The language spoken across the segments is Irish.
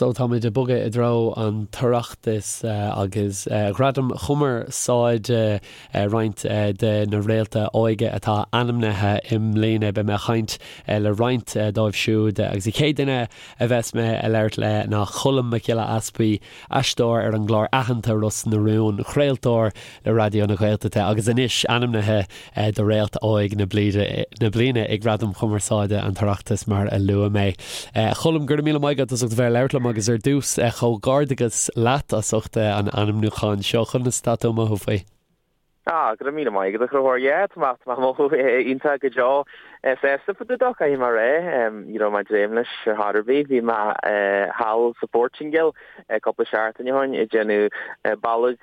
So táimid ag bogadh i dtreo an tOireachtais agus Ghradaim Chumarsáide, roinnt de na réalta óige atá ainmnithe i mbliana. Beidh mé ag caint le roinnt dóibh siúd agus an chéad duine a bheas mé ag labhairt le ná Colm Mac Giolla Easpaig, aisteoir ar an gclár aitheanta Ros na Rún, craoltóir le Raidió na Gaeltachta agus anois ainmnithe do Réalt Óg na Bliana ag Gradaim Chumarsáide an tOireachtais mar a luaigh mé. A Choilm, go raibh míle maith agat as ucht a bheith ag labhairt liom agus ar dtús comhghairdeachas leat as ucht an ainmniúcháin seo. Conas atá tú ag mothú faoi? Ah, go raibh míle maith agat a Chonchúir. Yeah, tá mé, tá mé ag mothú iontach go deo. Sásta fá dtaobh dó, caithfidh mé a rá. Ní raibh mé ag dréim leis ar chor ar bith. Bhí mé thall sa Phortaingéil cúpla seachtain ó shin ag déanamh bealaigh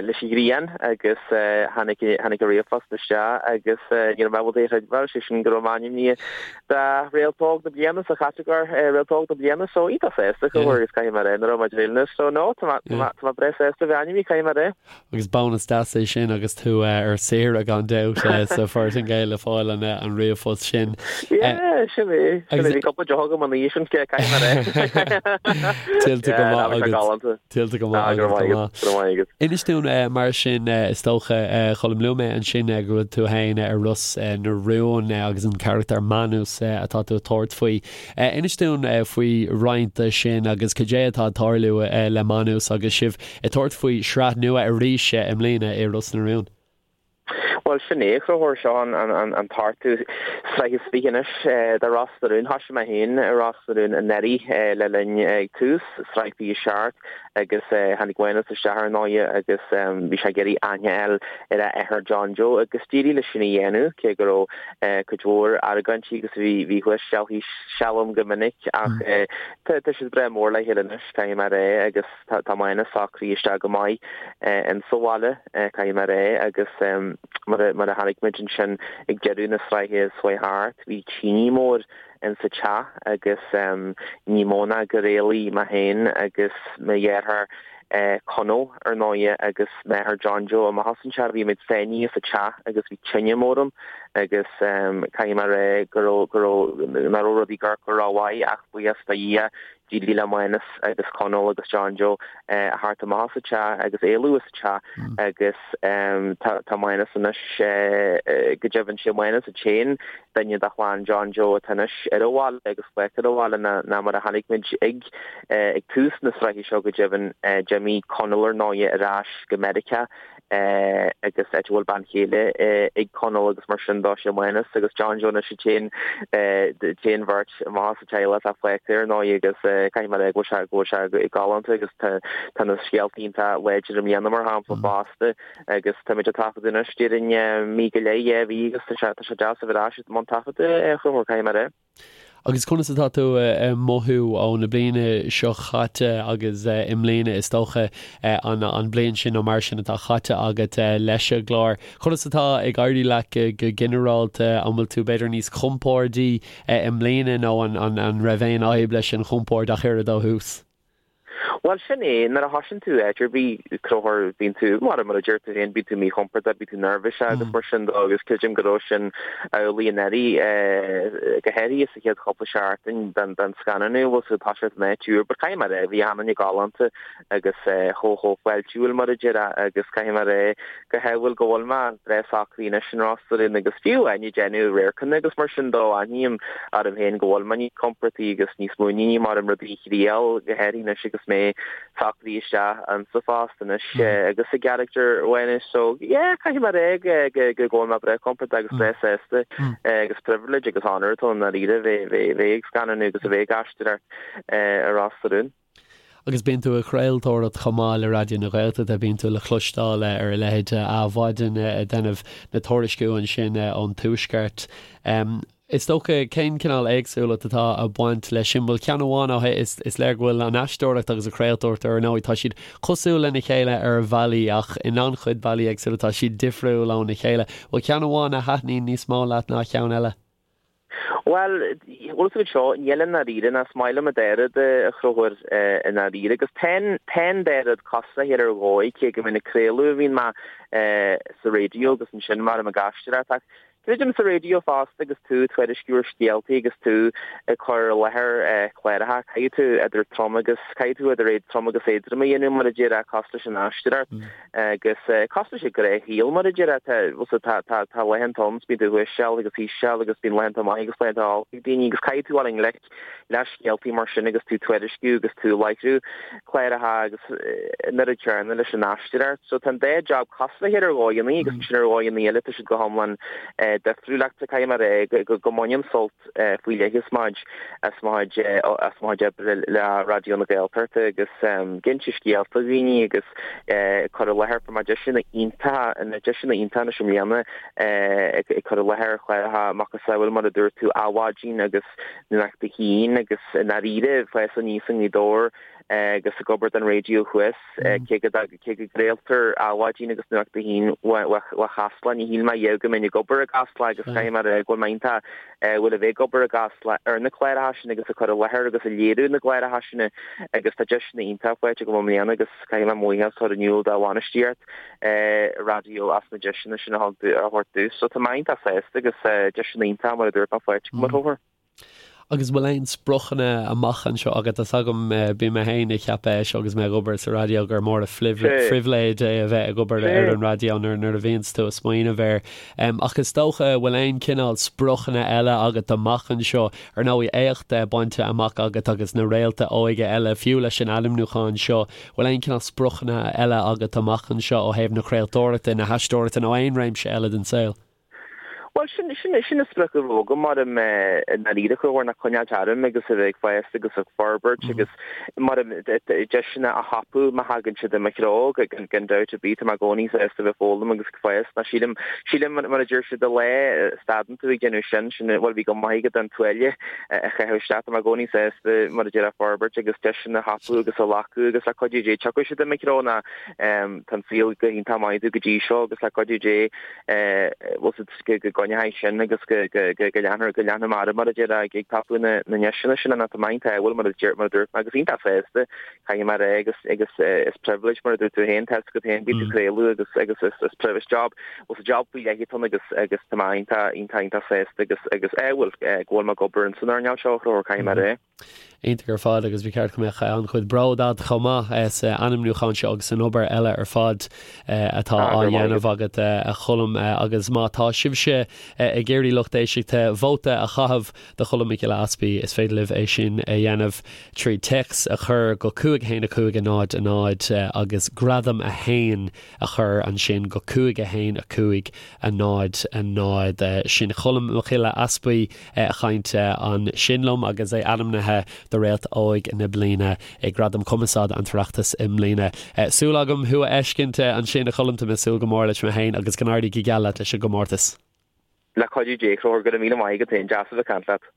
leis an ghrian agus tháinig tháinig an ríomhphost isteach agus ní raibh mé ábalta é a chreidbheáil, sé sin go raibh mé ainmnithe do Réalt Óg na Bliana sa chatagóir Réalt Óg na Bliana so iontach sásta a Chonchúir agus caithfidh mé a rá nach raibh mé ag dréim leis. So no, tá mé tá mé tá mé breá sásta a bheith ainmnithe, caithfidh mé a rá. Agus bónas deas é sin agus tú ar saoire gan dabht sa Phortaingéil le fáil an ríomhphost sin. Yeah, sin é. Sin é. Bhí cúpla deoch agam an oíche sin, caithfidh mé a rá. Tuillte go maith agat. Tuillte go maith agat. Go maith. Go maith agat. Inis dúinn mar sin, is dócha, Choilm, luaigh mé ansin go bhfuil tú féin ar Ros na Rún agus an carachtar Manus atá tú ag tabhairt faoi. Inis dúinn faoi roinnt de sin agus cad é atá ag tarlú le Manus agus sibh ag tabhairt faoi shraith nua arís i mbliana i Ros na Rún. Bhuel, sin é, a Chonchúir, seo an t-ochtú sraith is 20 anois de Ros na Rún. Thoisigh mé féin i Ros na Rún anuraidh le linn ag tús sraith 27 agus tháinig Mánus isteach ar ndóighe agus bhí sé ag iarraidh aithne a fháil ar a athair John Joe agus d'éirigh leis sin a dhéanamh cé go raibh cuid mhór argóintí agus bhí bhí thuas seal thíos seal ann go minic ach tá siad breá mór le chéile anois, caithfidh mé a rá, agus. Tá Mánus socraithe isteach go maith in sa bhaile, caithfidh mé a rá, agus mar a chonaic muid ansin ag deireadh na sraithe seo chuaigh thart, bhí tine mór in sa teach agus ní mó ná gur éalaigh mé féin agus mo dheartháir Conall, ar ndóighe, agus m'athair John Joe amach as an teach. Bhí muid sáinnithe sa teach agus bhí tine mór ann agus caithfidh mé a rá go raibh, go raibh, nach raibh rudaí ag amharc go rómhaith ach buíochas do Dhia D'éirigh le Mánus agus Conall agus John Joe a theacht amach as an teach agus éalú as an teach agus tá Mánus anois, go deimhin, sé Mánus an t-aon duine de chlann John Joe atá anois ar an bhaile agus fágtha ar an bhaile ná mar a chonaic muid ag ag tús na sraithe seo go deimhin d'imigh Conall ar ndóighe ar ais go Meiriceá agus áit a bhfuil bean chéile ag Conall agus mar sin dó sé Mánus agus John Joe anois an t-aon t-aon bheirt amach as an teaghlach atá fágtha ar ndóigh agus caithfidh mé a rá go bhfuil sé go bhfuil sé galánta agus tá tá na scéalta iontach láidir i mbliana mar shampla fosta agus táimid ag taifeadadh anois déarfainn mí go leith dhá mhí agus tá sé tá sé deas a bheith ar ais i mbun taifeadta a Chonchúir caithfidh mé a rá. Agus conas atá tú ag mothú ó na bliana seo chaite agus i mbliana is dócha an bliain sin nó mar sin atá chaite agat leis an gclár. Conas atá ag éirí leat go ginearálta? An bhfuil tú b'fhéidir níos compórdaí i mbliana nó an raibh aon fhadhb leis an chompord ach oiread ó thús? Bhuel, sin é, nuair a thosaíonn tú áit ar bith, a Chonchúir, bíonn tú, mar mar a deir tú féin, bíonn tú míchompordach, bíonn tú neirbhíseach agus mar sin de agus creidim go raibh sin amhlaidh anuraidh, go háirithe sa chéad chúpla seachtain den den scannánú, bhfuil tú ag toiseacht in áit úr, but caithfidh mé a rá, bhí achan duine galánta agus chomh chomh fáiltiúil mar a déarfá agus caithfidh mé a rá go hamhail go bhfuil mé breá socraithe anois in Ros na Rún agus fiú amháin ag déanamh radharcanna agus mar sin dó, aithním orm féin go bhfuil mé níos compordaí agus níos muiníní mar orm rudaí a thriail, go háirithe anois agus mé socraithe isteach insa phost anois agus i gcarachtar Mhánais. So yeah, caithfidh mé a rá go go bhfuil mé breá compordach agus breá sásta agus privilege agus honour atá ann i ndáiríre bheith bheith ag scannánú agus a bheith ag aisteoireacht i Ros na Rún. Agus bíonn tú ag craoltóireacht chomh maith le Raidió na Gaeltachta, bíonn tú le cloisteáil ar a leithéid de Adhmhaidin ag déanamh na tuairisciú ansin ón Tuaisceart. Is dócha, cén cineál éagsúlacht atá ag baint leis sin? Bhuel, ceann amháin ó is, is léir go bhfuil an aisteoireacht agus an chraoltóireacht ar ndóigh, tá siad cosúil lena chéile ar bhealaí ach in an-chuid bealaí éagsúla tá siad difriúil óna chéile. Bhfuil ceann amháin a thaitníonn níos mó leat ná ceann eile? Bhuel, bhfuil a fhios agat seo, níl i ndáiríre, ná is maith liom an dá rud a Chonchúir i ndáiríre, agus tá an dá rud cosúil le chéile ar dhóigh, cé go mbíonn ag craoladh a bhíonn mé sa raidió agus ansin mar ag aisteoireacht ach. Creidim sa raidió fosta agus tú ag tuairisciú ar scéaltaí agus tú ag cur i láthair cláracha, caithfidh tú idir trom agus, caithfidh tú idir trom agus éadrom a dhéanamh mar a déarfá, cosúil leis an aisteoireacht agus cosúil leis an ghnáthshaol mar a déarfá, tá, bhfuil tá, tá, tá laethanta ann is bíonn tú thuas seal agus thíos seal agus bíonn laethanta maith agus laethanta olc ag daoine agus caithfidh tú dul i ngleic le scéaltaí mar sin agus tú ag tuairisciú agus tú ag láithriú cláracha agus an oiread céanna leis an aisteoireacht. So tá an dá job cosúil le chéile ar dhóigheanna agus ansin ar dhóigheanna eile tá siad go hiomlán difriúil ach caithfidh mé a rá go mbainim sult faoi leith as mo chuid as mo chuid as mo chuid oibre le Raidió na Gaeltachta agus ag inse scéalta dhaoine agus cur i láthair fuair mé deiseanna iontacha na deiseanna iontacha anois i mbliana ag cur i láthair chláracha macasamhail mar a dúirt tú Adhmhaidin agus Nuacht a hAon agus i ndáiríre fás aníos i nGaoth Dobhair agus ag obair don raidió thuas cé go cé go gcraoltar Adhmhaidin agus Nuacht a hAon ó Chasla ní shíl mé riamh go mbeinn ag obair i gCasla agus caithfidh mé a rá go bhfuil mé iontach bhfuil a bheith ag obair i gCasla ar na cláracha sin agus ag cur i láthair agus ag léiriú na gcláracha sin agus tá deiseanna iontach faighte agam i mbliana agus caithfidh mé mo bhuíochas a chur in iúl do bhainistíocht raidió as na deiseanna sin a thug a thabhairt domh. So tá mé iontach sásta agus deiseanna iontach mar a dúirt mé faighte agam a Chonchúir. Agus bhfuil aon spriocanna amach anseo agat? Tá's agam, bíonn mé féin ag ceapadh é seo agus mé ag obair sa raidió gur mór an phribhléid é a bheith ag obair ar an raidió nuair nuair a bhíonns tú ag smaoineamh air. Ach is dócha, bhfuil aon cineál spriocanna eile agat amach anseo? Ar ndóigh, éacht bainte amach agat agus na réalta óige eile, fiú leis an ainmniúchán seo, Bhfuil aon cineál spriocanna eile agat amach anseo ó thaobh na craoltóireachta, na haisteoireachta nó aon réimse eile den saol? Bhuel, sin, sin, sin an sprioc a bhí agam mar i ndáiríre a Chonchúir ná coinneáilt orm agus a bheith ag fás agus ag forbairt agus mar deiseanna a thapú má thagann siad i mo threo, gan, gan dabht ar bith, tá mé i gcónaí sásta a bheith ag foghlaim agus ag fás. Ná sílim, sílim mar a deir siad an lá a stadann tú ag déanamh sin, sin, bhuel bhí go maith agat an tuáille a chaitheamh isteach. Tá mé i gcónaí sásta mar a déarfá forbairt agus deiseanna a thapú agus a ghlacadh agus le cuidiú Dé tiocfaidh siad i mo threo ná tá an saol go hiontach maith domh go dtí seo agus le cuidiú Dé bhfuil a fhios agat go gcoinneoidh sin agus go leanfar go leanfaidh mé orm mar a déarfá ag tapú na ndeiseanna sin ná tá mé iontach bhuel mar a mar a dúirt mé agus iontach sásta caithfidh mé a rá agus agus is privilege mar a dúirt tú féin tá a fhios agat féin bíonn tú ag craoladh agus agus is is privilege job bhuel is job faoi leith atá ann agus agus tá mé iontach iontach iontach sásta agus agus eh bhuel go bhfuil mé ag obair in san earnáil seo a Chonchúir caithfidh mé a rá. Iontach ar fad agus ba cheart go mbeadh an-chuid bród agat chomh maith sa ainmniúchán seo agus san obair eile ar fad atá á dhéanamh agat a Choilm agus má tá sibhse ag iarraidh lucht éisteachta vóta a chaitheamh do Cholm Mac Giolla Easpaig is féidir libh é sin a dhéanamh trí téacs a chur go 5 1 5 0 0 agus gradam 1 a chur ansin go 5 1 5 0 0. Sin Colm Mac Giolla Easpaig ag caint ansin liom agus é ainmnithe do Réalt Óig na Bliana ag Gradaim Cumarsáide an tOireachtas i mbliana. Súil agam thú a fheiscint ansin a Choilm, tá mé ag súil go mór leis mé féin agus go n-éirí go geal leat leis an gcomórtas. Le cuidiú Dé, a Chonchúir, go raibh míle maith agat féin, deas a bheith ag caint leat.